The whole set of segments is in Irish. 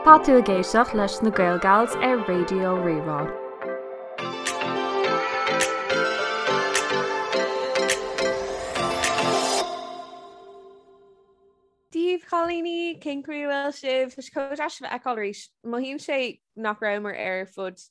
Tá tú ag éisteacht leis na Gaelgals ar Raidió Rí-Rá. Dia daoibh a chailíní, cén chaoi a bhfuil sibh? Tá sé chomh deas sibh a fheiceáil arís. Mothaíonn sé nach rabhamar ar fud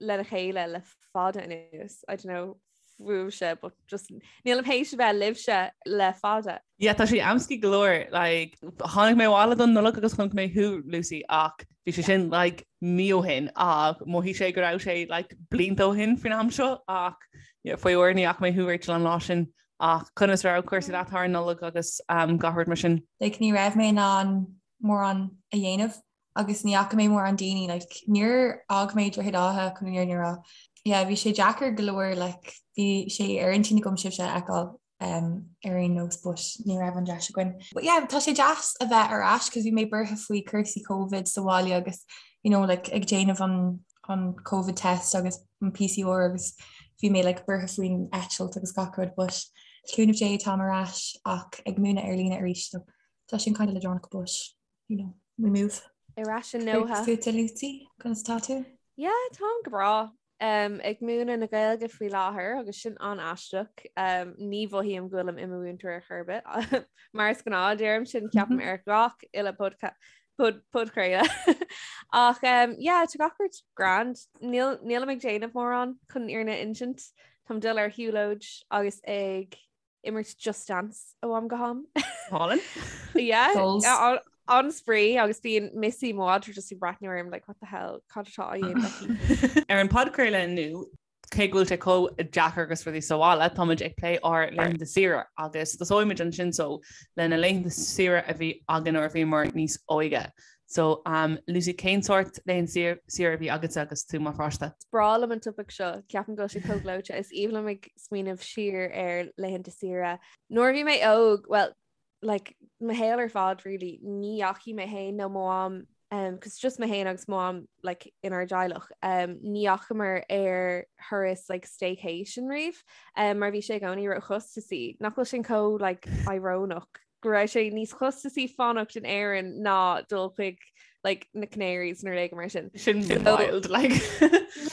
lena chéile le fada anuas. I don't know fúibhse but just nílim théis a bheith libhse le fada. Yeah tá sé amscaí go leor like tháinig mé abhaile don Nollaig agus chonaic mé thú Lucy ach bhí sé sin like mí ó shin ach mhothaigh sé go raibh sé like blianta ó shin faoin am seo ach yeah, faoi uair ní fhaca mé thú Rachel an lá sin ach conas raibh cúrsaí leat thar an Nollaig agus um, gach rud mar sin? Like ní raibh mé in ann mórán a dhéanamh agus ní fhaca mé mórán daoine like níor fhág mé Droichead Átha chun an fhírinne a rá. Yeah, bhí sé deacair go leor like bhí sé ar intinn agam sibhse a fheiceáil um, ar aon nós but ní raibh an deis againn. But yeah, tá sé deas a bheith ar ais cos bhí mé buartha faoi cúrsaí COVID sa bhaile agus you know, like, ag déanamh an, an COVID test agus an PCR agus bhí mé like, buartha faoin eitilt agus gach rud but cúnamh Dé táim ar ais ach ag múineadh ar líne arís so tá sin kind of leadránach but you know, we move. Ar ais i nDoha. Fútsa Lucy, conas tá tú? Yeah, táim go breá. Um, ag múineadh na Gaeilge faoi láthair agus sin an-aisteach. Um, ní mhothaím go bhfuilim i mo mhúinteoir ar chor ar bith. Mar is gnáth deirim sin ceapaim ar gach uile podchraoladh. Ach um, yeah, tá gach rud grand. Níl nílim ag déanamh mórán chun an fhírinne a insint. Táim ag dul ar shiúlóid agus ag imirt Just Dance ó am go ham. Hálainn? Yeah, an-spraoi agus bíonn Missy mo mhadra just ag breathnú orm like what the hell cad atá á dhéanamh aici. Ar an podchraoladh inniu, cé go bhfuil sé chomh deacair agus rudaí sa bhaile, táimid ag plé ár laethanta saoire agus tosóimid ansin so le na laethanta saoire a bhí againn nuair a bhíomar níos óige. So, um, Lucy, cén sórt laethanta saoire a bhí agatsa agus tú mar pháiste? Is breá liom an topaic seo, ceapaim go bhfuil sé chomh gleoite. Is aoibhinn liom ag smaoineamh siar ar laethanta saoire. Nuair a bhí mé óg, well, like, mo shaol ar fad, really, ní dheachaigh mé féin nó mo mham, um, cos just mé féin agus mo mham, like, inár dteaghlach, um, ní dheachamar ar thuras, like, staycation riamh, um, mar bhí sé i gcónaí róchostasaí. Nach bhfuil sin chomh, like, íorónach? go raibh sé níos costasaí fanacht in Éirinn ná dul chuig like, na Canaries nó rud éigin mar sin. Sin wild like.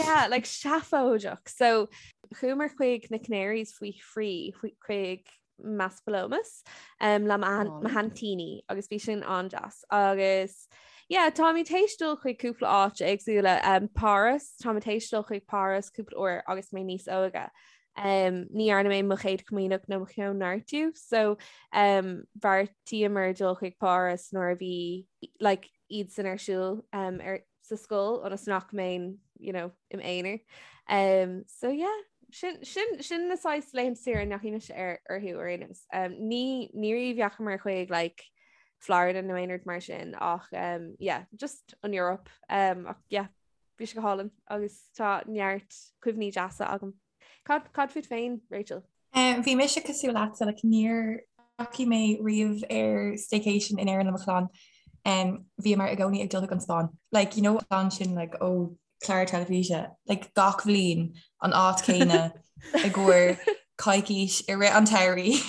yeah, like seafóideach. So chuamar chuig na Canaries faoi thrí chuig Maspalomas um, le mo haintíní agus bhí sin an-deas. Agus yeah, táimid théis dul chuig cúpla áit éagsúla um, Páras, táimid théis dul chuig Páras cúpla uair agus mé níos óige. Um, ní dhearna mé mo chéad chomaoineach nó mo chóineartú, so um, bheartaíomar dul chuig Páras nuair a bhí like, iad san ar siúl um, ar, sa scoil ionas nach mbeinn you know, im aonar. Um, so yeah, sin, sin, sin na saghas laethanta saoire a ndeachaigh mise ar orthu ar aon nós. Um, ní ní riamh dheachamar chuig like, Florida nó aon rud mar sin ach um, yeah, just an Europe um, ach yeah, Bhí sé go hálainn agus tá neart cuimhní deasa agam. Cad cad fút féin, Rachel? Um, bhí mise cosúil leatsa, like, níor dheachaigh mé riamh ar staycation in Éirinn le mo chlann. Um, bhíomar i gcónaí ag dul chuig an Spáinn. Like, you know, an sin like, ó chlár teilifíse, like, gach bhliain an áit céanna i gcomhair coicís i rith an tsamhraidh.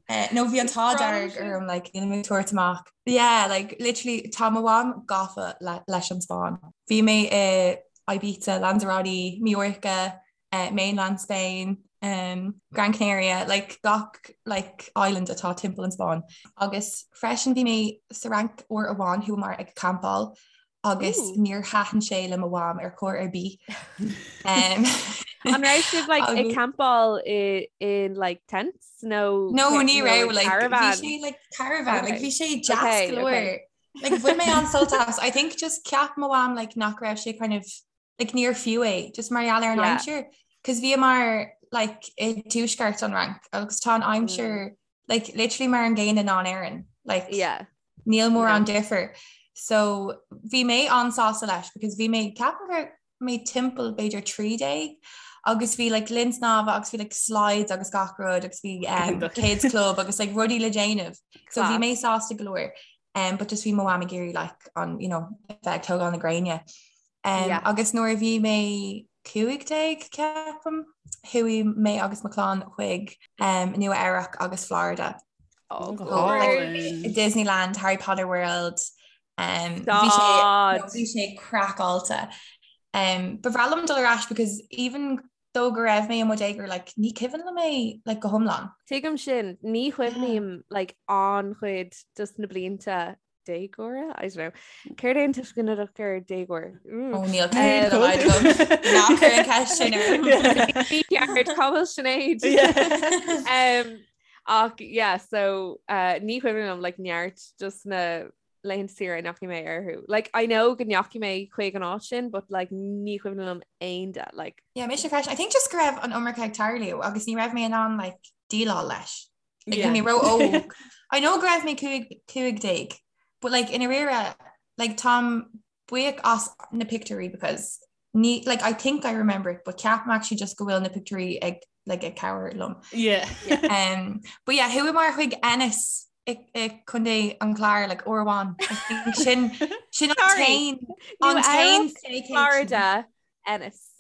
Eh, nó bhí an t-ádh dearg orm like, níl mé ag tabhairt amach. Yeah, like, literally, tá mo mham gafa le, leis an Spáinn. Bhí mé i Ibiza, Lanzarote, Mallorca, uh, mainland Spain, um, Gran Canaria, like, gach like, island atá timpeall an Spáinn. Agus freisin bhí mé sa Fhrainc uair amháin chuamar ag campáil agus níor thaitin sé le mo mham ar chor ar bith. Um, An raibh sibh like, ag campáil i in like tents nó No ní raibh like bhí sé like caravan like bhí sé deas go leor. Like bhain mé an-sult as I think just cheap mo mham like nach raibh sé kind of like níor fiú é just mar gheall ar an aimsir cos bhíomar like i dtuaisceart an Fhrainc agus tá an aimsir mm. like literally mar an gcéanna ná in Éirinn like yeah. níl mórán difear so bhí mé an-sásta leis because bhí mé ceapaim go raibh mé timpeall b'fhéidir 13 agus bhí like linn snámha agus bhí like slides agus gach rud agus bhí um, kids club agus like rudaí le déanamh so bhí mé sásta go leor um, but just bhí mo mham ag iarraidh like an you know bheith ag tógáil na gréine Um, yeah. Agus nuair a bhí mé 15 ceapaim, chuaigh mé agus mo chlann chuig um, Nua Eabhrac agus Florida. Oh, like, Disneyland, Harry Potter World. Um, bhí sé no, bhí sé craiceáilte. Um, ba bhreá liom dul ar ais because even though go raibh mé i mo dhéagóir like, ní cuimhin liom é like, go hiomlán. Tuigim sin, ní chuimhním like, an-chuid dos na blianta déagóra? I don't know. Céard é an tuiseal ginideach ar déagóir? Ó níl céad Ná cuir an ceist sin orm. Ní ceart cá bhfuil Sinéad. Um, ach yeah, so uh, ní chuimhin liom like, neart dos na laethanta saoire a ndeachaigh mé orthu. Like, I know go ndeachaigh mé chuig an áit sin, but like, ní chuimhin liom aon de. Like, Yeah, mise freisin. I think just go raibh an iomarca ag tarlú agus ní raibh mé in ann like, déileáil leis. Like, bhí mé ró-óg. I know go raibh mé 15, but like, i ndáiríre, like, táim buíoch as na pictiúirí because ní, like, I think I remember it, but ceapaim actually just go bhfuil na pictiúirí ag, like, ag cabhair liom. Yeah. Um, but yeah, chuamar chuig Ennis i, i Contae an Chláir, like, uair amháin. I think sin, sin an Sorry. t-aon, an t-aon Nua-Eabhrac, staycation. Florida, Ennis.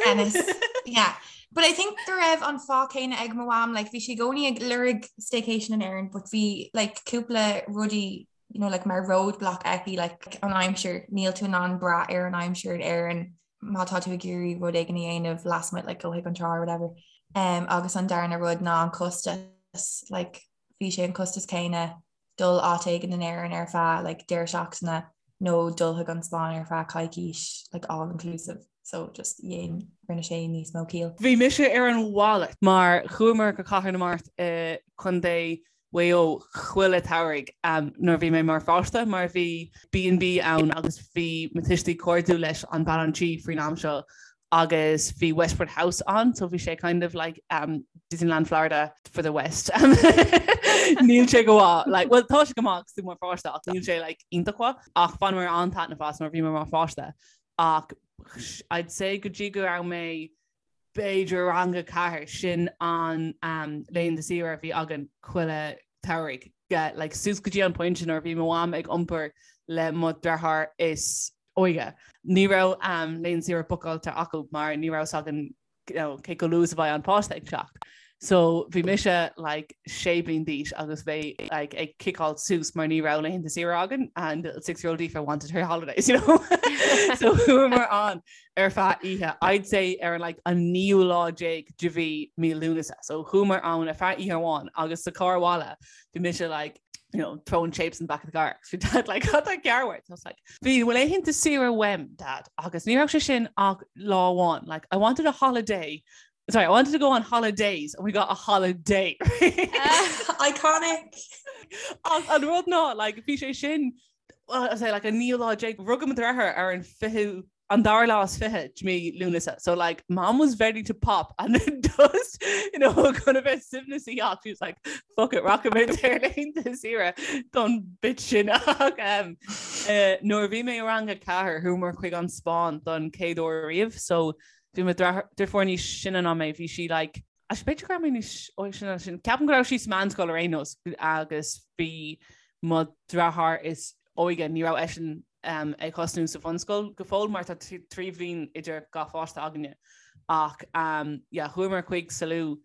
Ennis. Yeah. But I think go raibh an fáth céanna ag mo mham, like, bhí sí i gcónaí ag lorg staycation in Éirinn, but bhí like, cúpla rudaí you know, like, mar roadblock aici like, an aimsir, níl tú in ann brath ar an aimsir in Éirinn má tá tú ag iarraidh rud éigin a dhéanamh lasmuigh like, go chuig an trá or whatever. Um, agus an darna rud ná an costas, like, bhí sé an costas céanna dul áit éigin in Éirinn ar feadh like, deireadh seachtaine nó dul chuig an Spáinn ar feadh coicís like, all inclusive. So just dhein rinne sé níos mó ciall. Bhí mise ar an mhalairt mar chuamar go Cathair na Mart i Contae Mhaigh Eo chuile shamhradh nuair a bhí mé mar pháiste mar bhí B&B ann agus bhí mo tuistí cairdiúil leis an bean an tí faoin am seo agus bhí Westport House ann so bhí sé kind of like um, Disneyland Florida for the West. Níl sé go maith like, well tá sé go maith agus tú mar pháiste ach níl sé like, iontach mhaith ach bhaineamar an-taitneamh as nuair a bhí mé mar pháiste ach I'd say go dtí go raibh mé b'fhéidir rang a 4, sin an um, laethanta saoire a bhí againn chuile shamhradh. Like, suas go dtí an pointe nuair a bhí mo mham ag iompar le mo dheartháir is óige. Ní raibh um, laethanta saoire bookáilte acu mar ní raibh fhios againn you know, cé chomh luath is a bheidh an páiste ag teacht. So bhí mise like sé bliain d'aois agus mé like ag ciceáil suas mar ní raibh laethanta saoire againn and little six year old Aoife wanted her holidays, you know. so chuamar ann ar feadh oíche, I'd say ar like an naoú lá déag de mhí mí Lúnasa. So chuamar ann ar feadh oíche amháin agus sa carr abhaile bhí mise like you know, throwing shapes in the back of the car. Bhí dad like, cad tá cearr uait? I was like, bhí laethanta saoire uaim, dad, agus ní raibh sé sin ach lá amháin. Like, I wanted a holiday. Sorry, I wanted to go on holidays and we got a holiday. Iconic! Ach an rud ná, like, bhí sé sin, well, I say, like, an naoú lá déag, rugadh mo dheartháir ar an fichiú an dara lá is fiche de mí Lúnasa. So like mom was ready to pop and then just you know chun a bheith suaimhneasach ach she was like fuck it rachaimid ar laethanta saoire don bit sin ach um, uh, nuair a bhí mé i rang a ceathair chuamar chuig an Spáinn don chéad uair riamh so bhí mo deirfiúr níos sine ná mé bhí sí like Actually, b'fhéidir go raibh mé níos óige sin ná sin. Ceapaim go raibh sí sa meánscoil ar aon nós agus bhí mo dheartháir is óige, ní raibh eisean um, ag tosnú sa bhunscoil go fóill mar tá 3 bhliain idir gach pháiste againne. Ach um, yeah, chuamar chuig Salou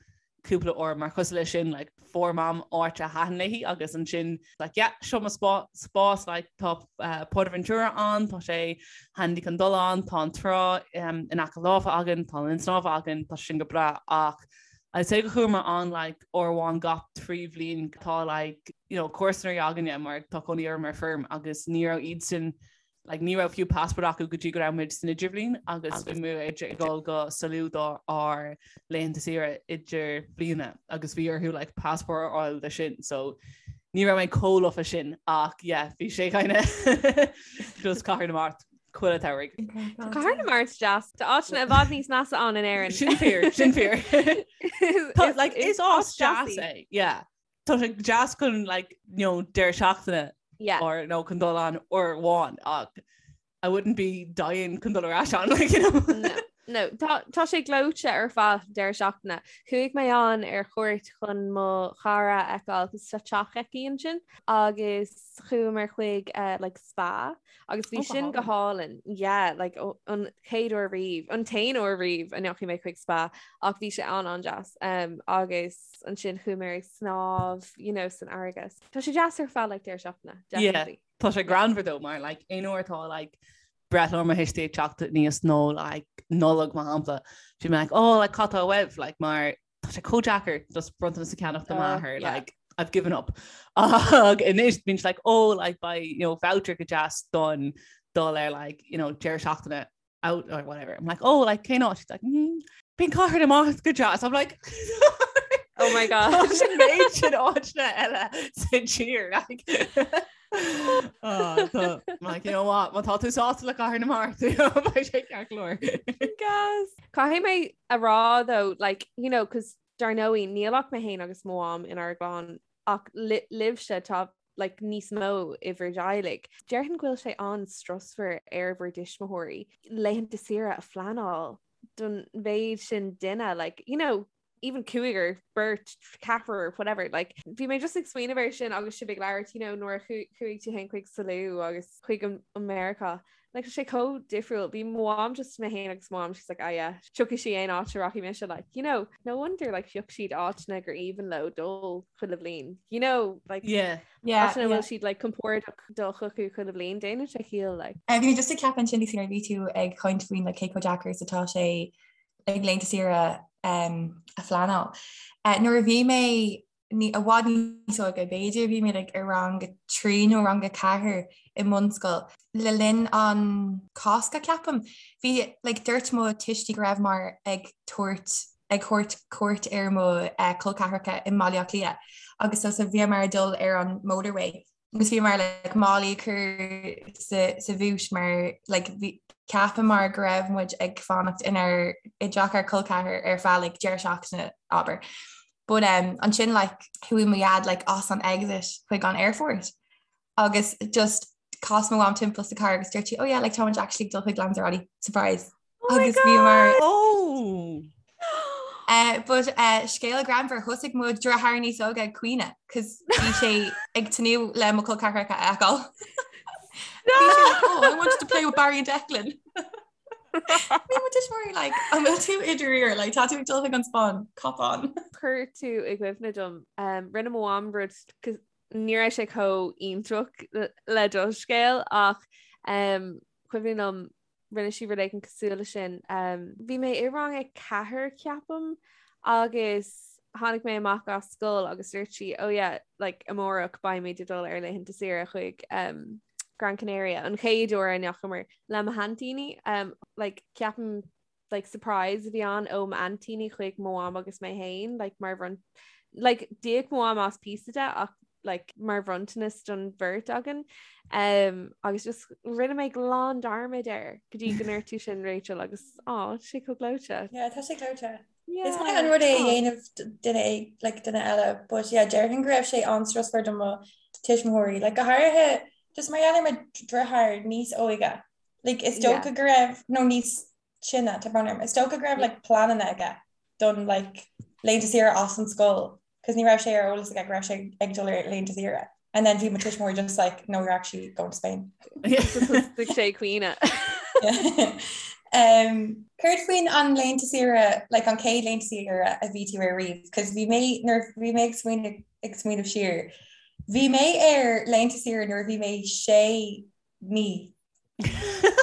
cúpla uair mar cosúil leis sin like, fuair mam áit a thaitin léi agus ansin like, yeah, seo mo spás like, tá uh, Portaventura ann, tá sé handy chun dul ann, tá an trá um, in aice láimhe againn, tá an linn snámha againn, tá sin go breá ach I'd say go chuamar ann like uair amháin gach 3 bhliain tá like you know comharsana againne mar tá cónaí orm ar feirm agus ní raibh iadsan like ní raibh fiú passport acu go dtí go raibh muid san idirbhliain agus bhí muid ag dul go Salou do ár laethanta saoire idirbhliana agus bhí orthu like passport a fháil de sin so ní raibh mé chomh lofa sin ach yeah bhí sé kind of just Cathair na Mart chuile shamhradh. Tá Cathair na Mart deas. Tá áiteanna i bhfad níos measa ann in Éirinn. Sin fíor, sin fíor. Tá like is áit deas é, yeah. Tá sé deas chun like you know deireadh seachtaine Yeah. or nó chun dul ann uair amháin ach I wouldn't be dying chun dul ar ais ann like you know. No. No, tá tá sé gleoite ar feadh deireadh seachtaine. Chuaigh mé ann ar chuairt chun mo chara a fheiceáil cos tá teach aici ansin agus chuamar chuig eh, like spa agus bhí Oh, go sin go hálainn. Yeah, like ó- an chéad uair riamh, an t-aon uair riamh a ndeachaigh mé chuig spa ach bhí sé an an-deas. Um, agus ansin chuamar ag snámh, you know, san fharraige. Tá sé deas ar feadh like deireadh seachtaine, Yeah. definitely. Tá sé greannmhar though mar like aon uair atá like breithlá mo thuistí ag teacht aníos nó like Nollaig mar shampla bhí mé like oh like cad atá uaibh like mar tá sé chomh deacair just bronntanas a cheannach do m'athair yeah. like I've given up ach anois bíonn sé like oh like beidh you know voucher go deas don dul ar like you know deireadh seachtaine out or whatever I'm like oh like cén áit She's like mm, bíonn Cathair na Mart go deas I'm like Oh my god. Sin méid sin áiteanna eile sa tír like Oh, like, you know what, má tá tú sásta le Cathair na Mart beidh sé ceart go leor. Gas. Caithfidh mé a rá though, like, you know, cos dar ndóigh níl ach mé féin agus mo mham inár gclann ach libhse tá like, níos mó i bhur dteaghlaigh. Déarfainn go bhfuil sé an-strusmhar ar bhur dtuismitheoirí laethanta saoire a phleanáil don mhéid sin duine, like, you know, even cúigear, beirt, ceathrar, whatever, like, bhí mé just ag smaoineamh air sin agus sibh ag labhairt, you know, nuair a chuaigh tú féin chuig Salou agus chuig an Meiriceá, like, tá sé chomh difriúil. Bhí mo mham just mé féin agus mo mham, she's like, ah yeah, tiocfaidh sí aon áit a rachaidh mise, like, you know, no wonder, like, phioc siad áiteanna gur aoibhinn leo dul chuile bhliain, you know, like, yeah. Yeah, áiteanna yeah. bhfuil siad like compordach dul chucu chuile bhliain, déanann sé ciall, like. Bhí mé just ag ceapadh ansin nuair a bhí tú ag caint faoin like, cé chomh deacair is atá sé like laethanta saoire a phleanáil. Nuair a bhí mé i bhfad níos óige, b'fhéidir bhí mé like i rang a 3 nó rang a 4 i mbunscoil, le linn an Cásca ceapaim, bhí like dúirt mo tuistí go rabhamar ag tabhairt ag thabhairt cuairt ar mo col ceathracha i mBaile Átha Cliath agus so so bhíomar ag dul ar an motorway agus bhíomar like málaí a chur sa sa bhúit mar like bhí cheapamar go raibh muid ag fanacht inár i dteach ár col ceathar ar feadh like deireadh seachtaine abair. But um, ansin like chuaigh mo dhaid like as an exit chuig an airport agus just chas mo mham timpeall sa car agus dúirt sí oh yeah like táimid actually ag dul chuig Lanzarote surprise. Oh my Agus bhíomar God! Oh! Uh, but uh, scéal greannmhar thosaigh mo dheartháir níos óige ag caoineadh, cos bhí sé ag tnúth le mo chol ceathracha a fheiceáil. Bhí sé like, oh, I wanted to play with Barry and Declan. Bhí mo tuismitheoirí like, an bhfuil tú i ndáiríre, like, tá tú ag dul chuig an Spáinn, cop on. Chuir tú i gcuimhne dom, um, rinne mo mham rud ní raibh sé chomh iontach le do scéal ach um, cuimhin liom rinne sí rud éigin cosúil le sin. Bhí mé i rang a ceathair ceapaim agus tháinig mé amach as scoil agus dúirt sí oh yeah like amárach beimid ag dul ar laethanta saoire chuig um, Gran Canaria an chéad uair a ndeachamar le mo haintíní um, like ceapaim like surprise a bhí ann ó m'aintíní chuig mo mham agus mé féin like mar bhron like d'íoc mo mham as píosa de ach like mar bhronntanas don bheirt againn um, agus just rinne mé glan dearmad air go dtí go ndúirt tú sin Rachel agus á tá sé chomh gleoite. Yeah, tá sé gleoite. Yeah. Is maith an rud é a dhéanamh duine like, duine eile, but yeah, déarfainn go raibh sé an-strusmhar do mo tuismitheoirí, like, go háirithe just mar gheall ar mo dheartháir níos óige. Like, is dócha go raibh nó níos sine, tá brón orm, is dócha go raibh like, pleananna aige don like, laethanta saoire as an scoil cos ní raibh sé ar eolas aige go raibh sé ag dul ar laethanta saoire. And then bhí mo tuismitheoirí just like, no, you're actually going to Spain. Thosaigh sé ag caoineadh. Um, Céard faoin an laethanta saoire, like an chéad laethanta saoire a bhí tú ar riamh, cos bhí mé nuair bhí mé ag smaoineamh ag smaoineamh siar. Bhí mé ar laethanta saoire nuair a bhí mé sé mí.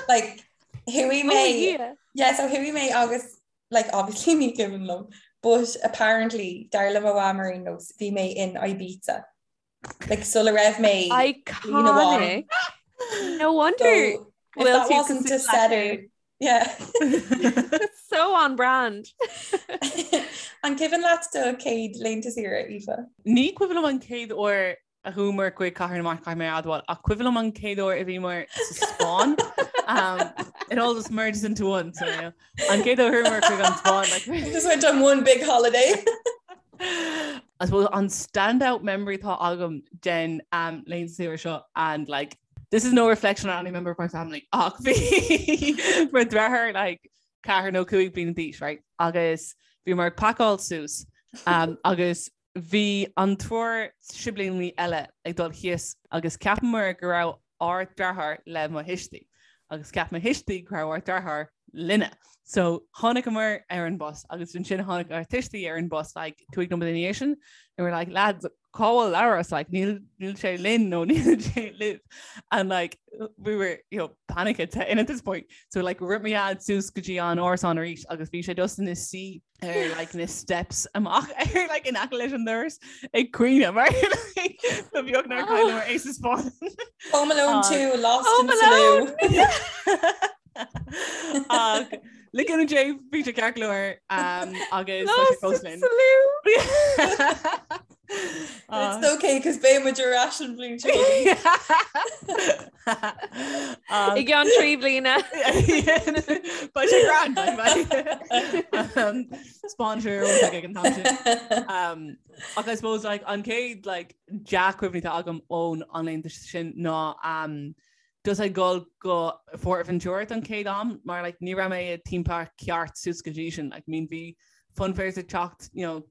Like chuaigh mé Oh, yeah. Yeah, so chuaigh mé agus like obviously ní cuimhin liom, but apparently dar le mo mham ar aon nós bhí mé in Ibiza. Like sula raibh mé Iconic. No wonder. So, if that wasn't a setter, yeah. So on brand. An cuimhin leat do chéad laethanta saoire, Aoife? Ní cuimhin liom an chéad uair a chuamar chuig Cathair na Mart caithfidh mé a admháil ach cuimhin liom an chéad uair a bhíomar sa Spáinn. Um, it all just merges into one, so yeah. An chéad uair a chuamar chuig an Spáinn like, Just went on one big holiday. I suppose an standout memory atá agam den um, laethanta saoire seo and like this is no reflection on any member of my family ach bhí mo dheartháir like. 4 nó 5 bliana d'aois, right? Agus bhíomar ag pacáil suas um, agus bhí an triúr siblíní eile ag dul thíos agus cheapamar go raibh ár deartháir le mo thuistí agus cheap mo thuistí go raibh ár deartháir linne. So tháinigeamar ar an bus agus ansin tháinig ár tuistí ar an bus like 5 nóiméad ina dhiaidh sin and we're like lads cá bhfuil Labhrás like níl níl sé linn nó níl sé libh and like we were you know panic at in at this point so like rith mo dhaid suas go dtí an árasán arís agus bhí sé just ina suí ar like na steps amach ar like in aice leis an doras ag caoineadh mar like ba bheag nár cailleadh é sa Spáinn. Home Alone 2 Lost Home in Salou. Ach le cúnamh Dé bhí sé ceart go leor agus tá sé fós linn. It's okay cos beidh muid ar ais an bhliain seo. I gceann 3 bliana. Beidh sé grand Spáinn ag an t-am sin. Ach I suppose like an chéad like dea-chuimhne atá agam ón an laethanta sin ná um, just ag dul go Fuerteventura don chéad am mar like ní raibh mé i theme park ceart suas go dtí sin like I mean bhí funfairs ag teacht you know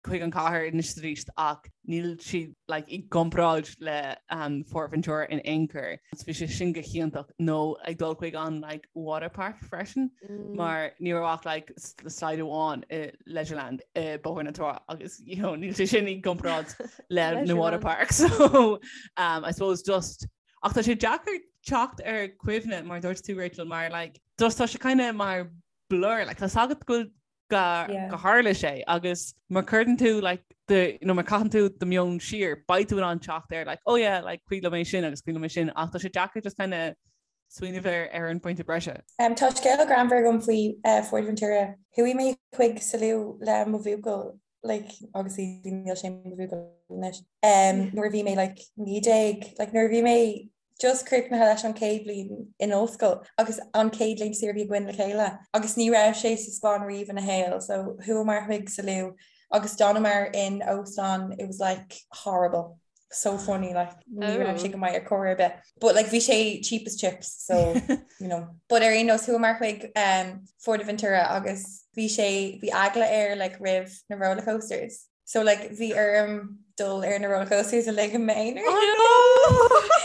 chuig an cathair anois is arís ach níl siad like i gcomparáid le um, Fuerteventura in aon chor. So bhí sé sin go hiontach nó ag dul chuig an like water park freisin mm. mar ní raibh ach like slide amháin i Leisureland i Bóthar na Trá agus you know níl sé sin i gcomparáid le na water park so um, I suppose just Ach tá sé deacair teacht ar cuimhne mar dúirt tú Rachel mar like just tá sé kind of mar blur like tá a fhios agat go go yeah. go tharla sé agus má chuireann tú like the you know má caitheann tú do meon siar beidh tú in ann teacht ar like oh yeah like cuimhin liom é sin agus cuimhin liom é sin ach tá sé deacair just kind of smaoineamh ar ar an pointe breise. Um, tá scéal greannmhar agam faoi uh, Fuerteventura. Chuaigh mé chuig Salou le mo bhuachaill like obviously níl sé mo bhuachaill anois um, nuair a bhí mé like 19 like nuair a bhí mé just críochnaithe leis an chéad bhliain in ollscoil agus an chéad laethanta saoire a bhí againn le chéile agus ní raibh sé sa Spáinn riamh ina shaol so chuamar chuig Salou agus d'fhanamar in óstán it was like horrible so funny like ní raibh sé go maith ar chor ar bith but like bhí sé cheap as chips so you know but ar aon nós chuamar chuig um, Fuerteventura agus bhí sé bhí eagla air like roimh na roller coasters so like bhí orm dul ar na roller coasters uilig i m'aonar Oh no!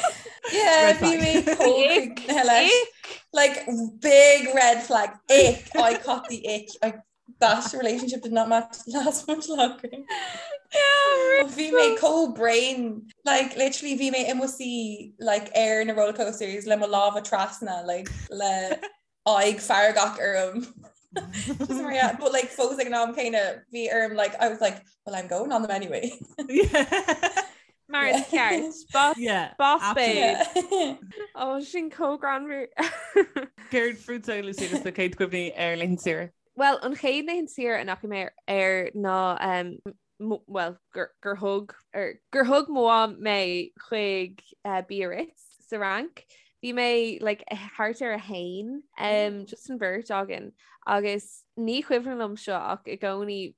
yeah Red bhí flag. mé chomh leis like big red flag ick I caught the ick I That relationship did not match last much longer. Yeah, Bhí mé chomh bréan like literally bhí mé i mo suí like ar na roller coasters le mo lámha trasna like le aghaidh feargach orm. Just mar yeah, but like fós ag an am céanna bhí orm like I was like well I'm going on them anyway. Mar is ceart. Boss, Yeah, boss absolutely. babe. Ó sin chomh greannmhar. Céard fútsa Lucy agus do chéad chuimhní ar laethanta saoire? Well an chéad laethanta saoire a ndeachaigh mé air ná um, well gur, gur thug er, gur thug mo mham mé chuig uh, Biarritz sa Fhrainc. Bhí mé like, thart ar a haon um, just an bheirt againn agus ní cuimhin liom seo ach i gcónaí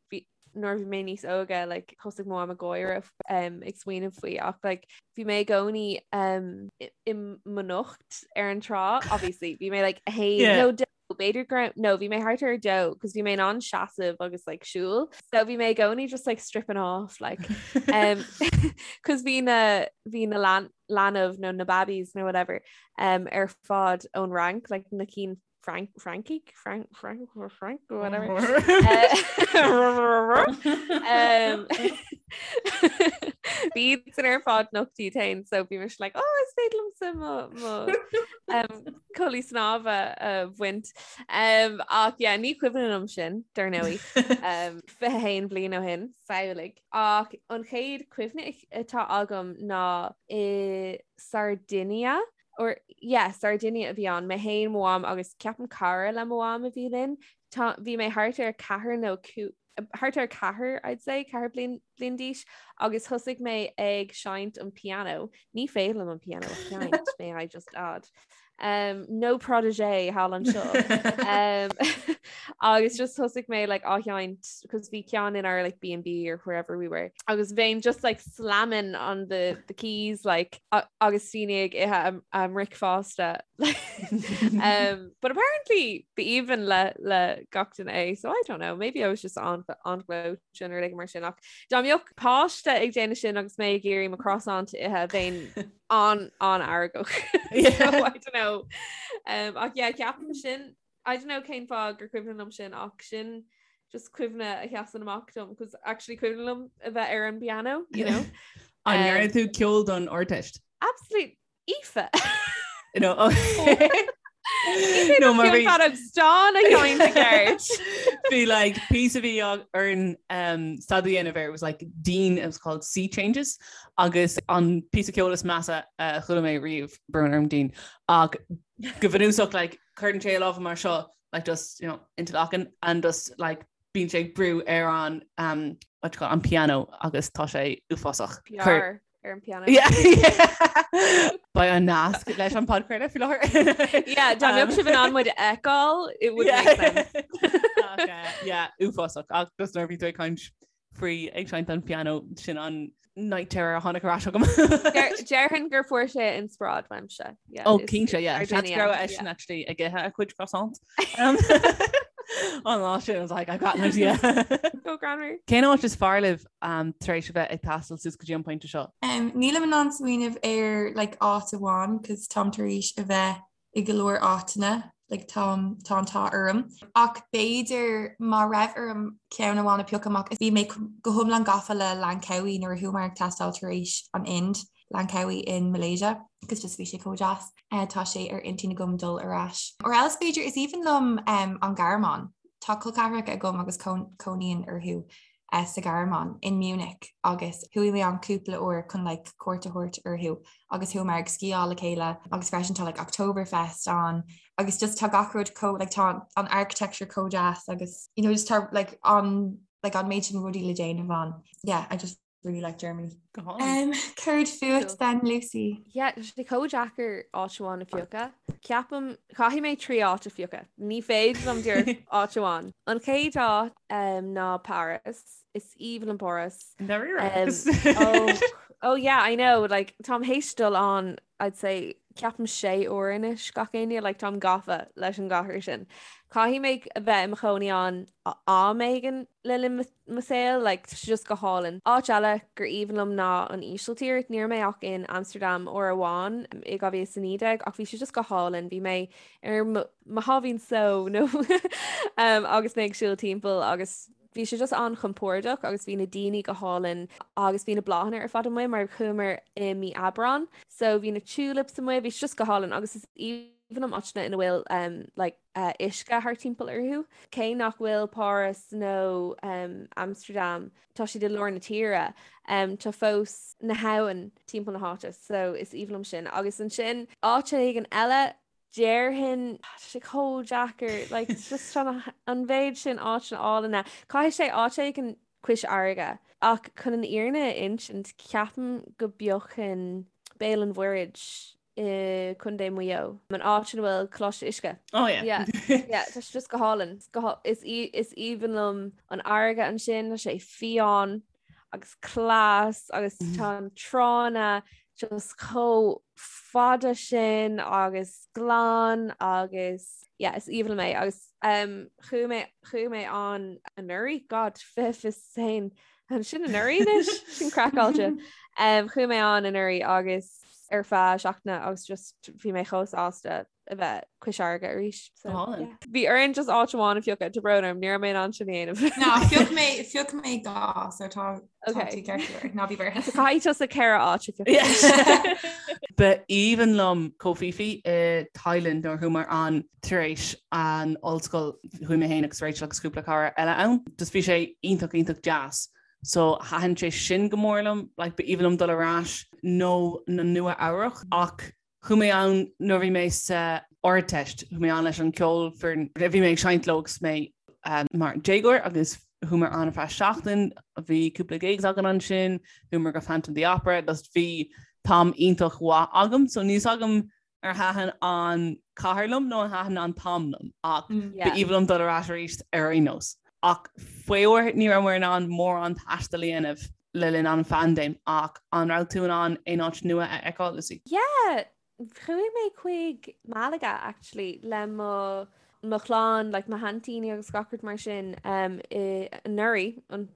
nuair a bhí mé níos óige like thosaigh mo mham ag gáire um, ag smaoineamh faoi ach like bhí mé i gcónaí um, i mo nocht ar an trá obviously bhí mé like a haon yeah. nó dó b'fhéidir go no bhí mé thart ar dó cos bhí mé in ann seasamh agus like siúl so bhí mé i gcónaí just like stripping off like um, cos bhí na bhí na lan leanbh nó na babbies nó whatever um, ar fad ón Fhrainc like na cinn Frank Frankie Frank Frank Frank whatever um, Bhí san ar fad nocht iad féin so bhí mise like oh is féidir liomsa mo mo um, culaith snámha a bhaint um, ach yeah, ní cuimhin liom sin dar ndóigh um, 21 bliain ó shin samhlaigh ach an chéad chuimhne atá agam ná i Sardinia or yeah, Sardinia a bhí ann, mé féin, mo mham agus ceapaim cara le mo mham a bhí linn. Tá, bhí mé thart ar ceathair nó cú, thart ar ceathair, I'd say, ceathair bliain bliain d'aois agus thosaigh mé ag seinnt an piano. Ní féidir liom an piano a sheinnt, may I just add. Um, no protégé thall anseo. um, agus just thosaigh mé like, á sheinnt cos bhí ceann in our like B&B or wherever we were. Agus bheinn just like slamming on the, the keys like, agus daoine ag ithe a mbricfeasta. um, but apparently b'aoibhinn le, le gach duine é, so I don't know, maybe I was just on, on glow sin nó rud mar sin ach dá mbeadh páiste ag déanamh sin agus mé ag iarraidh mo croissant a ithe bheinn an an-fheargach. So, I don't know. Um, ach yeah, ceapaim sin I don't know cén fáth gur cuimhin liom sin ach sin just cuimhne a sheasann amach dom cos actually cuimhin liom a bheith ar an piano, you know. An um, ndearna tú ceol don Ardteist? Absolute Aoife. No, No, mar bhí feadóg stáin a sheinnt i gceart. Bhí like piece a bhí orainn um, staidéar a dhéanamh air, it was like Dean, it was called Sea Changes agus an píosa ceoil is measa a chuala mé riamh brón orm Dean ach go bunúsach like cuireann sé a lámha mar seo like just you know interlocking and just like bíonn sé ag brú ar an um, what you call it, an piano agus tá sé uafásach. Cuir- ar an piano. Beidh an nasc leis an podchraoladh faoi láthair. Yeah, dá mbeadh sibh in ann muid a fheiceáil, it would make sense. Ach, yeah, uafásach ach just nuair a bhí tú ag caint faoi ag seinnt an piano sin an night terror a tháinig ar ais agam. Déarfainn gur fuair sé inspioráid uaimse. Yeah, Ó cinnte, yeah. Seans go raibh eisean actually ag ithe a chuid croissant. An lá sin, I was like, I've got an idea. Go greannmhar. Cén áit is fearr libh um, tar éis a bheith ag taisteal suas go dtí an pointe seo? Um, nílim in ann smaoineamh ar like, áit amháin cos táim tar éis a bheith i go leor áiteanna like, táim tá an t-ádh orm. Ach b'fhéidir má raibh orm ceann amháin a phiocadh amach bhí mé go hiomlán gafa le Langkawi nuair a chuamar ag taisteal tar éis an Ind. Langkawi in Malaysia agus just bhí sé chomh deas. Tá sé ar intinn agam dul ar ais. Or else b'fhéidir is aoibhinn liom an Ghearmáin. Tá col ceathracha agam agus cónaíonn orthu sa Ghearmáin, in Munich agus chuaigh mé ann cúpla uair chun like cuairt a thabhairt orthu agus chuamar ag sciáil le chéile agus freisin tá like Oktoberfest ann agus just tá gach rud chomh like tá an architecture chomh deas agus you know just tá like an like an méid sin rudaí le déanamh ann. Yeah, I just really like Germany. Go hálainn. Um, céard fút then, Lucy? Yeah, tá sé chomh deacair áit amháin a phiocadh. Ceapaim, caithfidh mé 3 áit a phiocadh. Ní féidir liom díreach áit amháin. An chéad áit um, ná Paris. Is aoibhinn liom Páras. Never um, oh, oh yeah, I know, like, táim théis dul ann, I'd say, ceapaim sé uair anois gach éinne, like, táim gafa leis an gcathair sin. Caithfidh mé a bheith i mo chónaí ann am éigin le linn mo saol, like, tá sé just go hálainn. Áit eile gur aoibhinn liom ná an Ísiltír. Ní raibh mé ach in Amsterdam uair amháin i 2019 ach bhí sé just go hálainn. Bhí mé ar mo sháimhín só nó agus mé ag siúl timpeall agus bhí sé just an-chompordach agus bhí na daoine go hálainn agus bhí na bláthanna ar fad amuigh mar chuamar i mí Aibreán. So bhí na tulips amuigh, bhí sé just go hálainn agus is aoibhinn liom áiteanna ina bhfuil um, like, uisce thart timpeall orthu. Cé nach bhfuil Páras nó Amsterdam, tá siad i lár na tíre, tá fós na habhann timpeall na háite, so is aoibhinn liom sin. Agus ansin áit éigin eile, déarfainn, tá sé chomh deacair, like it's just an mhéid sin áiteanna álainne. Caithfidh sé áit éigin cois fharraige. Ach chun an fhírinne a insint, ceapaim go bpiocfainn Béal an Mhuirthead i Contae Mhaigh Eo, an áit ina bhfuil Coláiste Uisce. Oh yeah. Yeah, yeah, tá sé just go hálainn. Is is aoibhinn liom an fharraige ansin, tá sé fiáin agus glas agus tá an tránna just chomh fada sin agus glan agus yeah, is aoibhinn liom é agus um, chuaigh mé chuaigh mé ann anuraidh, God, 2021 Sin anuraidh anois, sin craiceáilte. Um, chuaigh mé ann anuraidh agus ar feadh seachtaine agus just bhí mé chomh sásta a bheith cois fharraige arís. So, yeah. Bhí orainn just áit amháin a phiocadh, tá brón orm, ní raibh mé in ann sin a dhéanamh. Ná, phioc mé, phioc mé dhá, so tá tá tú ceart go leor. Ná bí buartha. So caithfidh tusa ceithre áit a phiocadh. Ba aoibhinn liom Koh Phi Phi i Thailand nuair a chuamar ann tar éis an ollscoil chuaigh mé féin agus Rachel agus cúpla cara eile ann. Just bhí sé iontach iontach deas. So thaitin sé sin go mór liom, like ba aoibhinn liom dul ar ais nó na Nua Eabhrach ach chuaigh mé ann nuair bhí mé sa Ardteist, chuaigh mé ann leis an ceolfhoireann, bhí mé ag seinnt leo agus mé um, mar déagóir agus. Chuamar ann ar feadh seachtain, bhí cúpla gigs againn ansin, chuamar go Phantom of the Opera, just bhí t-am iontach mhaith agam, so níl 's agam ar thaitin an cathair liom nó ar thaitin an t-am liom ach ba aoibhinn liom dul ar ais arís ar aon nós. Ach faraor ní raibh muid in ann mórán taistil a dhéanamh le linn an phaindéim ach an raibh tú in ann aon áit nua a fheiceáil, Lucy? Yeah, chuaigh mé chuig Malaga actually le mo mo chlann, like mo sheaintíní agus gach rud mar sin um, i anuraidh, an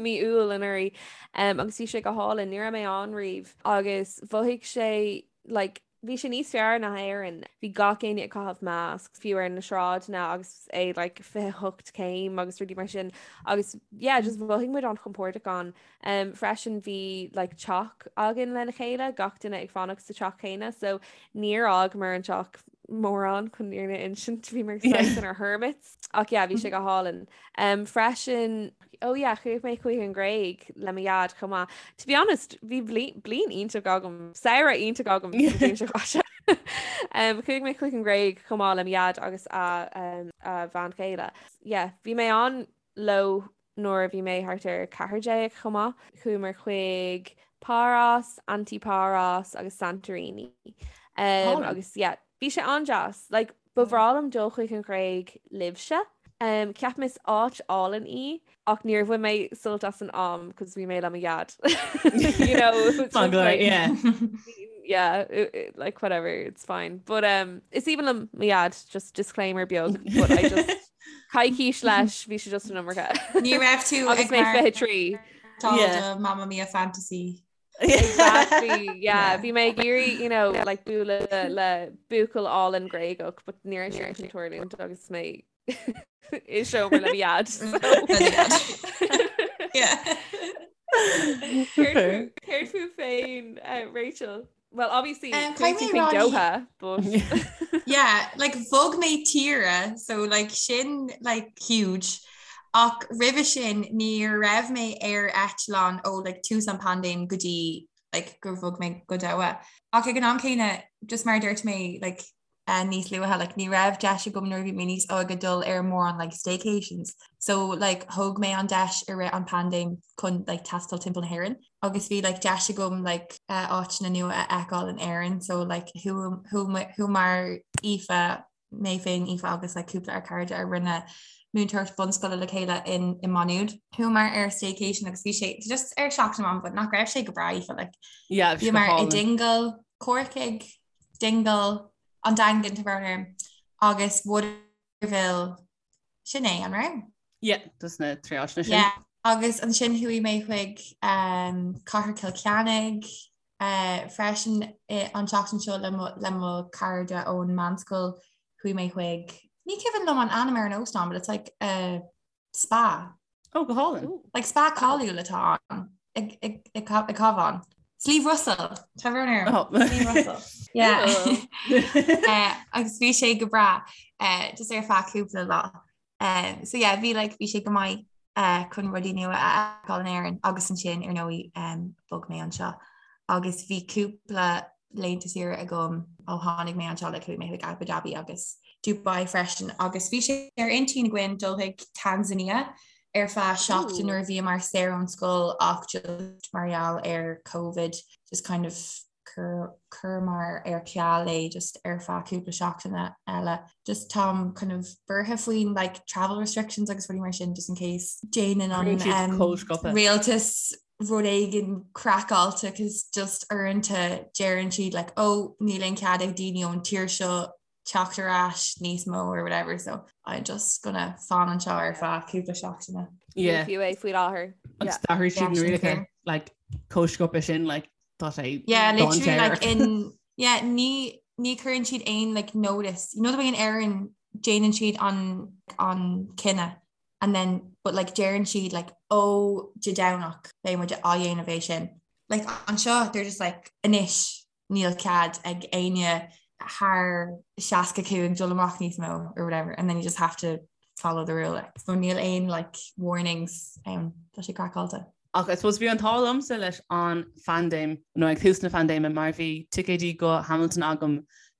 mí Iúil anuraidh um, agus bhí sé go hálainn, ní raibh mé ann riamh agus mhothaigh sé like, bhí sé níos fearr ná Éirinn. Bhí gach éinne ag caitheamh masc, fiú ar na sráideanna agus é like 28 céim agus rudaí mar sin agus yeah, just mhothaigh muid an-chompordach ann. Um, freisin bhí like teach againn lena chéile, gach duine ag fanacht sa teach céanna, so níor fhágamar an teach mórán chun an fhírinne a insint, bhí muid saghas inár hermits. Ach yeah, bhí sé go hálainn. Um, freisin, oh yeah, chuaigh mé chuig an Ghréig le mo dhaid chomh maith. To be honest, bhí bliain iontach agam, samhradh iontach agam sa bhliain seo caite. Um, chuaigh mé chuig an Ghréig chomh maith le mo dhaid agus a, um, a bhean chéile. Yeah, bhí mé ann leo nuair a bhí mé thart ar 14 chomh maith. Chuamar chuig Paros, Antiparos agus Santorini. Um, agus yeah, bhí sé an-deas. Like, ba bhreá liom dul chuig an Ghréig libhse. Um, ceapaim is áit álainn í ach níor bhain mé sult as an am cos bhí mé le mo dhaid. you know, it was just like, yeah. yeah, it, it, like whatever, it's fine. But um, is aoibhinn liom mo dhaid, just disclaimer beag, but I just Coicís leis, bhí sé just an iomarca. Ní raibh tú Agus mé 23. Tá Mamma Mia fantasy. Exactly, yeah. Bhí mé ag iarraidh, you know, like bualadh le buachaill álainn Gréagach, but ní raibh sé sin ag tarlúint agus mé i seomra le mo dhaid. Yeah. Céard fút féin, Rachel? Well, obviously, Um, chuaigh tú caithfidh mé chuig rá ní- Doha, but Yeah, like bhog mé tíre, so like sin like huge. Ach roimhe sin ní raibh mé ar eitleán ó like tús an paindéim go dtí like gur bhog mé go Doha. Ach ag an am céanna, just mar a dúirt mé like uh, níos luaithe, like ní raibh deis agam nuair a bhí mé níos óige dul ar mórán like staycations. So like thóg mé an deis i rith an paindéim chun like taisteal timpeall na hÉireann. Agus bhí like deis agam like uh, áiteanna nua a fheiceáil in Éirinn, so like chuamar Aoife mé féin Aoife agus like cúpla ár cairde a rinne múinteoireacht bunscoile le chéile in i Maigh Nuad. Chuamar ar staycation agus bhí sé just ar seachtain amháin, but nach raibh sé go breá Aoife like Yeah, bhí sé go Bhíomar i hálainn. Dingle, Corcaigh, Dingle, an Daingean tá brón orm, agus Waterville, sin é, an raibh? Yeah, just na trí áiteanna sin. Yeah, agus ansin chuaigh mé chuig um, Cathair Chill Chainnigh uh, freisin i, an tseachtain seo le mo, le mo cairde ón meánscoil chuaigh mé chuig ní cuimhin liom an ainm ar an óstán, but it's like a spa. Oh, go hálainn. Like spa cáiliúil atá ann ag Cabhán. Sliabh Russell Tá brón orm. Oh. Sliabh Russell. Yeah. Eh, agus bhí sé go breá eh, just ar feadh cúpla lá. Eh, so yeah, bhí like, bhí sé go maith eh, chun rudaí nua a fheiceáil in Éirinn agus ansin ar ndóigh um, bhog mé anseo. Agus bhí cúpla laethanta saoire agam ó tháinig mé anseo like chuaigh mé chuig Abu Dhabi agus Dubai freisin agus bhí sé ar intinn againn dul chuig Tanzania ar feadh seachtain nuair a bhíomar saor ón scoil ach just mar gheall ar Covid just kind of chuireamar ar ceal é just ar feadh cúpla seachtaine eile. Just táim kind of buartha faoin like travel restrictions agus rudaí mar sin just in case déanann an um, rialtas rud éigin craiceáilte cos just uaireanta deireann siad like oh níl aon cead ag daoine ón tír seo teacht ar ais níos mó or whatever so I'm just gonna fan anseo ar feadh cúpla seachtaine. Yeah. Fiú é faoi láthair. Agus d'athraigh siad na rialacha like chomh sciobtha sin like tá sé Yeah, literally like in yeah ní ní chuireann siad aon like notice. You know the way in Éirinn déanann siad an an cinneadh and then but like deireann siad like ó Dé Domhnach beidh muid á dhéanamh é sin. Like anseo they're just like anois níl cead ag éinne thar 65 dul amach níos mó or whatever and then you just have to follow the rule. Like. So níl aon like warnings um, tá sé craiceáilte. Ach I suppose bhí an t-ádh liomsa leis an phaindéim nó ag tús na paindéime mar bhí ticéidí go Hamilton agam.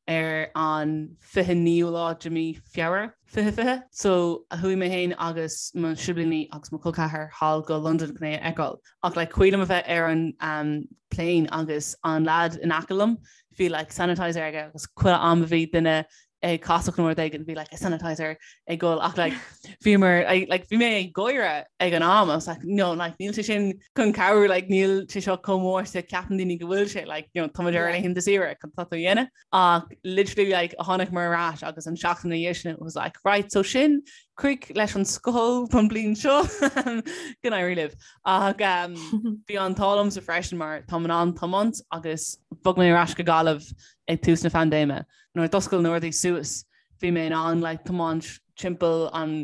ar an 29ú lá de mí Feabhra 2020. So chuaigh mé féin agus mo siblíní agus mo chol ceathar thall go Londain chun é a fheiceáil. Ach like cuimhin liom a bheith ar an um, plane agus an lad in aice liom bhí like sanitizer aige agus chuile am a bhí duine ag casacht nó rud éigin bhí like a sanitizer ag gol ach like bhí mar like bhí mé ag gáire ag an am I was like no like níl sé sin chun cabhrú like níl sé seo chomh mór is a ceapann daoine go bhfuil sé like you know tá muid ar laethanta saoire cad tá tú a dhéanamh ach literally like tháinig muid ar ais agus an seachtain ina dhiaidh sin it was like right so sin críoch leis an scoil don bliain seo go n-éirí libh ach um, bhí an t-ádh liomsa freisin mar táim in ann tiomáint agus bhog mé ar ais go Gaillimh ag tús na paindéime nuair a d'oscail na rudaí suas bhí mé in ann like tiomáint timpeall an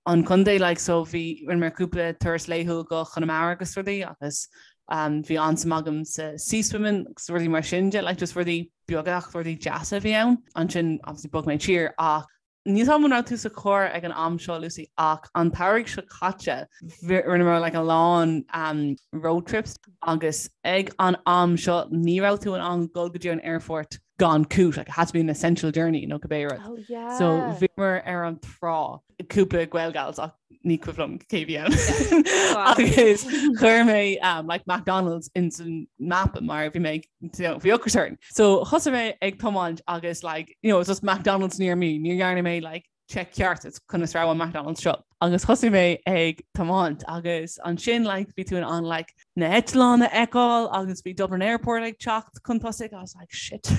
an contae like so bhí rinne mé cúpla turas laethúil go Conamara agus rudaí agus um, bhí an-suim agam sa sea swimming agus rudaí mar sin de like just rudaí beaga ach rudaí deasa a bhí ann. Ansin obviously bhog mé tír ach níl a fhios agam an raibh tú sa charr ag an am seo Lucy ach an t-earrach seo caite rinneamar like a lán um, road trips agus ag an am seo ní raibh tú in ann dul go dtí an airport gan cúis, like it had to be an essential journey nó cibé rud. Oh yeah. So bhíomar ar an trá cúpla Gaelgals ach ní cuimhin liom cé bhí ann. Agus chuir mé um, like McDonald's in san map mar bhí mé you know, bhí ocras orm. So thosaigh mé ag tiomáint agus like you know, it was just McDonald's near me, ní dhearna mé like check ceart is conas raibh an McDonald's seo. Agus thosaigh mé ag tiomáint agus ansin like bhí tú in ann like na heitleáin a fheiceáil agus bhí Dublin Airport ag teacht chun tosaigh I was like shit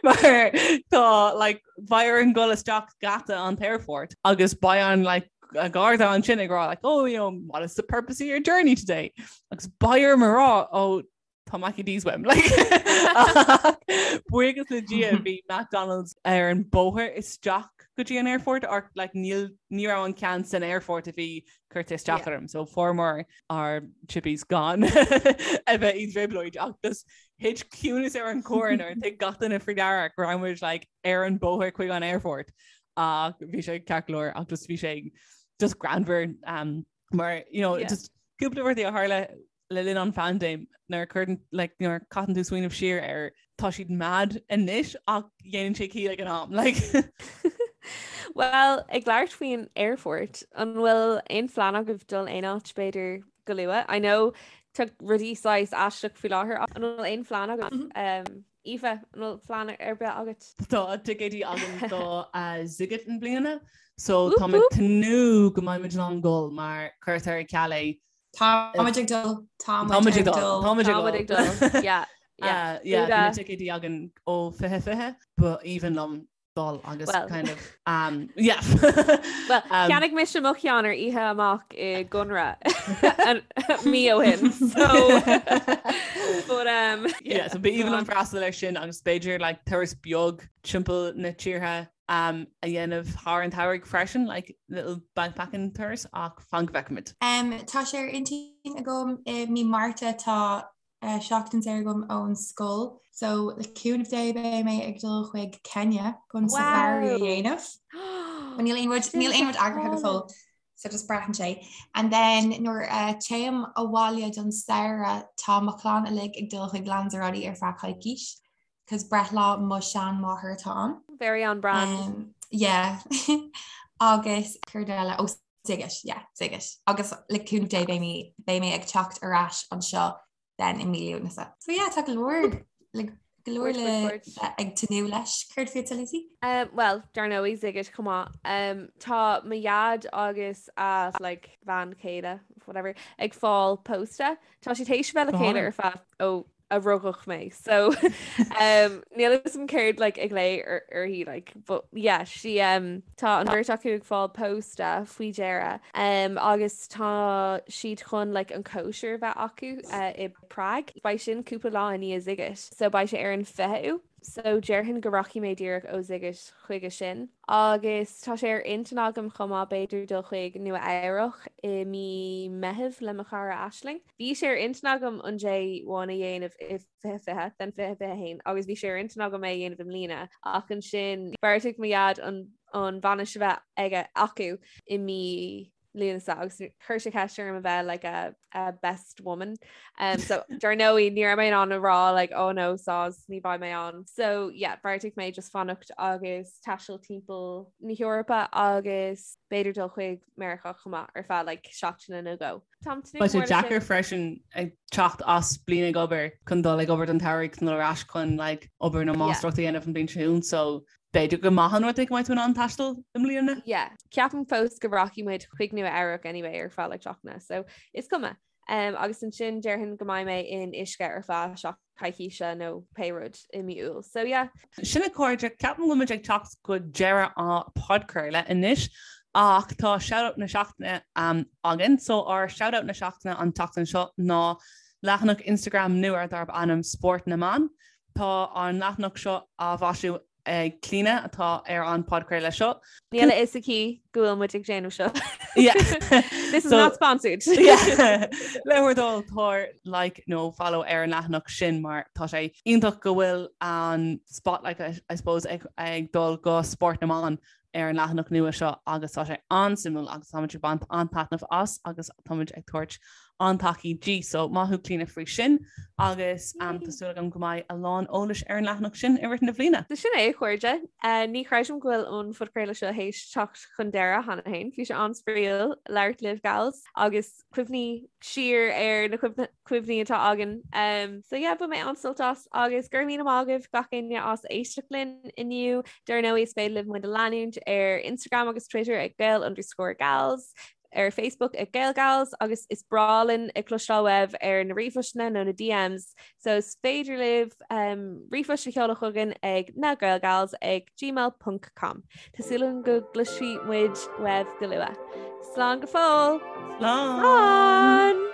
mar tá like beidh orainn dul isteach geata an airport agus beidh an like a garda ansin ag rá like oh you know what is the purpose of your journey today agus beidh orm a rá oh tá Mackie D's uaim like buíochas le Dia bhí McDonald's ar an bóthar isteach go dtí an airport or like níl ní raibh an ceann san airport a bhí curtha isteach orm so fuaireamar ár chippies gan a bheith i dtrioblóid ach just thit ciúnas ar an carr nuair a thuig gach duine faoi deara go raibh muid like ar an bóthar chuig an airport ach bhí sé ceart go leor ach just bhí sé just greannmhar um, mar you know, yeah. just cúpla rudaí a tharla le linn an phaindéim nuair a chuireann like nuair a caitheann tú smaoineamh siar air tá siad mad anois ach dhéanann sé ciall ag an am like. Well, ag labhairt faoin airport, an bhfuil aon phlean agaibh dul aon áit b'fhéidir go luath? I know tá rudaí saghas aisteach faoi láthair ach an bhfuil aon phlean agaibh? Mm -hmm. um, Aoife, an bhfuil plean ar bith agat? Tá ticéidí agam do uh, Sziget i mbliana, so tá mé ag tnúth go mbeidh muid in ann dul mar cuirtear ar ceal é Táimid ag dul Táimid ag dul Táimid ag dul Yeah. Yeah, yeah, bhí na ticéidí againn ó 2020 ba aoibhinn liom dul agus kind of um, yeah. Well, um, cheannaigh mise mo cheann ar oíche amach i gConradh mí ó shin. So but um yeah, so ba aoibhinn liom freastal air sin agus b'fhéidir like turas beag timpeall na tíre um, a dhéanamh thar an tsamhraidh freisin, like little bikepacking turas ach fan go bhfeicfimid. Um, tá sé ar intinn agam i mí Márta tá uh, seachtain saor agam ón scoil, so le cúnamh Dé beidh mé ag dul chuig Kenya chun wow. safari a dhéanamh. Níl aon rud níl aon rud eagraithe go fóill. So just braitheann sé. And then nuair uh, téim abhaile don samhradh tá mo chlann uilig ag dul chuig Lanzarote ar feadh coicís. 'cause breithlá mo sheanmháthar atá ann. Very on brand. Um, yeah. Agus céard eile ó Sziget, yeah, Sziget. Agus le cúnamh Dé beidh mé beidh mé ag teacht ar ais anseo then i mí Lúnasa. So yeah, tá go leor le go leor le bheith ag tnúth leis. Céard fútsa Lucy? Um, well, dar ndóigh Sziget chomh maith. Um, tá mo dhaid agus a like, bhean chéile, whatever, ag fáil pósta. Tá siad théis bheith le chéile ar feadh ó a rugadh mé so um, níl a fhios agam céard like, ag glao uirthi like, but yeah, she, um, tá an bheirt acu ag fáil pósta faoi dheireadh um, agus tá siad chun like, an cóisir a bheith acu uh, i Prague. Beidh sin cúpla lá i ndiaidh Sziget so beidh sé ar an 20ú. So déarfainn go rachaidh mé díreach ó Sziget chuige sin. Agus tá sé ar intinn agam chomh maith b'fhéidir dul chuig Nua Eabhrach i mí Meitheamh le mo chara Aisling. Bhí sé ar intinn agam an J1 a dhéanamh i 2020, then 2021 agus bhí sé ar intinn agam é a dhéanamh i mbliana ach ansin bheartaigh mo dhaid an an bhainis a bheith aige acu i mí. Lúnasa agus chuir sé ceist orm a bheith like a, a best woman. Um, so dar ndóigh ní raibh mé in ann a rá like oh no soz ní bheidh mé ann. So yeah, bheartaigh mé just fanacht agus taisteal timpeall na hEorpa agus b'fhéidir dul chuig Meiriceá chomh maith ar feadh like seachtaine nó dhó. Táim tnúth Beidh sé deacair freisin ag teacht as bliain ag obair chun dul ag obair don tsamhradh chun dul ar ais chun like obair na máistreacht a dhéanamh an bhliain seo chugainn so B'fhéidir gur maith an rud é go mbeidh tú in ann taisteal i mbliana. Yeah, ceapaim fós go rachaidh muid chuig Nua Eabhrac anyway ar feadh like seachtaine, so is cuma. Um, agus ansin déarfainn go mbeidh mé in uisce ar feadh seach coicíse nó pé rud i mí Iúil. So yeah. Sin a chairde, ceapaim go bhfuil muid ag teacht go deireadh an podchraoladh anois ach tá shoutout na seachtaine um, againn. So ár shoutout na seachtaine an tseachtain seo ná leathanach Instagram nua darb ainm Spórt na mBan. Tá an leathanach seo á mhaisiú ag Clíona atá ar an podchraoladh seo. Níl a fhios aici go bhfuil muid ag déanamh seo. Yeah. This is not sponsored. Le bhur dtoil tabhair like nó follow ar an leathanach sin mar tá sé iontach go bhfuil an spotlight I suppose ag, ag dul go spórt na mban ar an leathanach nua seo agus tá sé an-suimiúil agus táimid ag baint an-taitneamh as agus táimid ag tabhairt an-tacaí di. So maith thú Clíona faoi sin agus um, tá súil agam go mbeidh a lán eolais ar an leathanach sin i rith na bliana. So sin é a chairde. Uh, ní chreidim go bhfuil an phodchraoladh seo théis teacht chun deireadh cheana féin. Bhí sé an-spraíúil labhairt libh gals agus cuimhní siar ar na cuimhní atá againn. Um, so yeah, bhain mé an-sult as agus go raibh míle maith agaibh gach éinne as éisteacht linn inniu. Dar ndóigh is féidir libh muid a leanúint ar Instagram agus Twitter ag Gael underscore gals, ar Facebook ag GaelGals agus is breá linn ag cloisteáil uaibh ar na ríomhphostanna nó na DMs. So is féidir libh um, ríomhphost a sheoladh chugainn ag na gaelgals ag gmail.com. Tá súil agam go gcloisfidh muid uaibh go luath. Slán go fóill! Slán! Slán!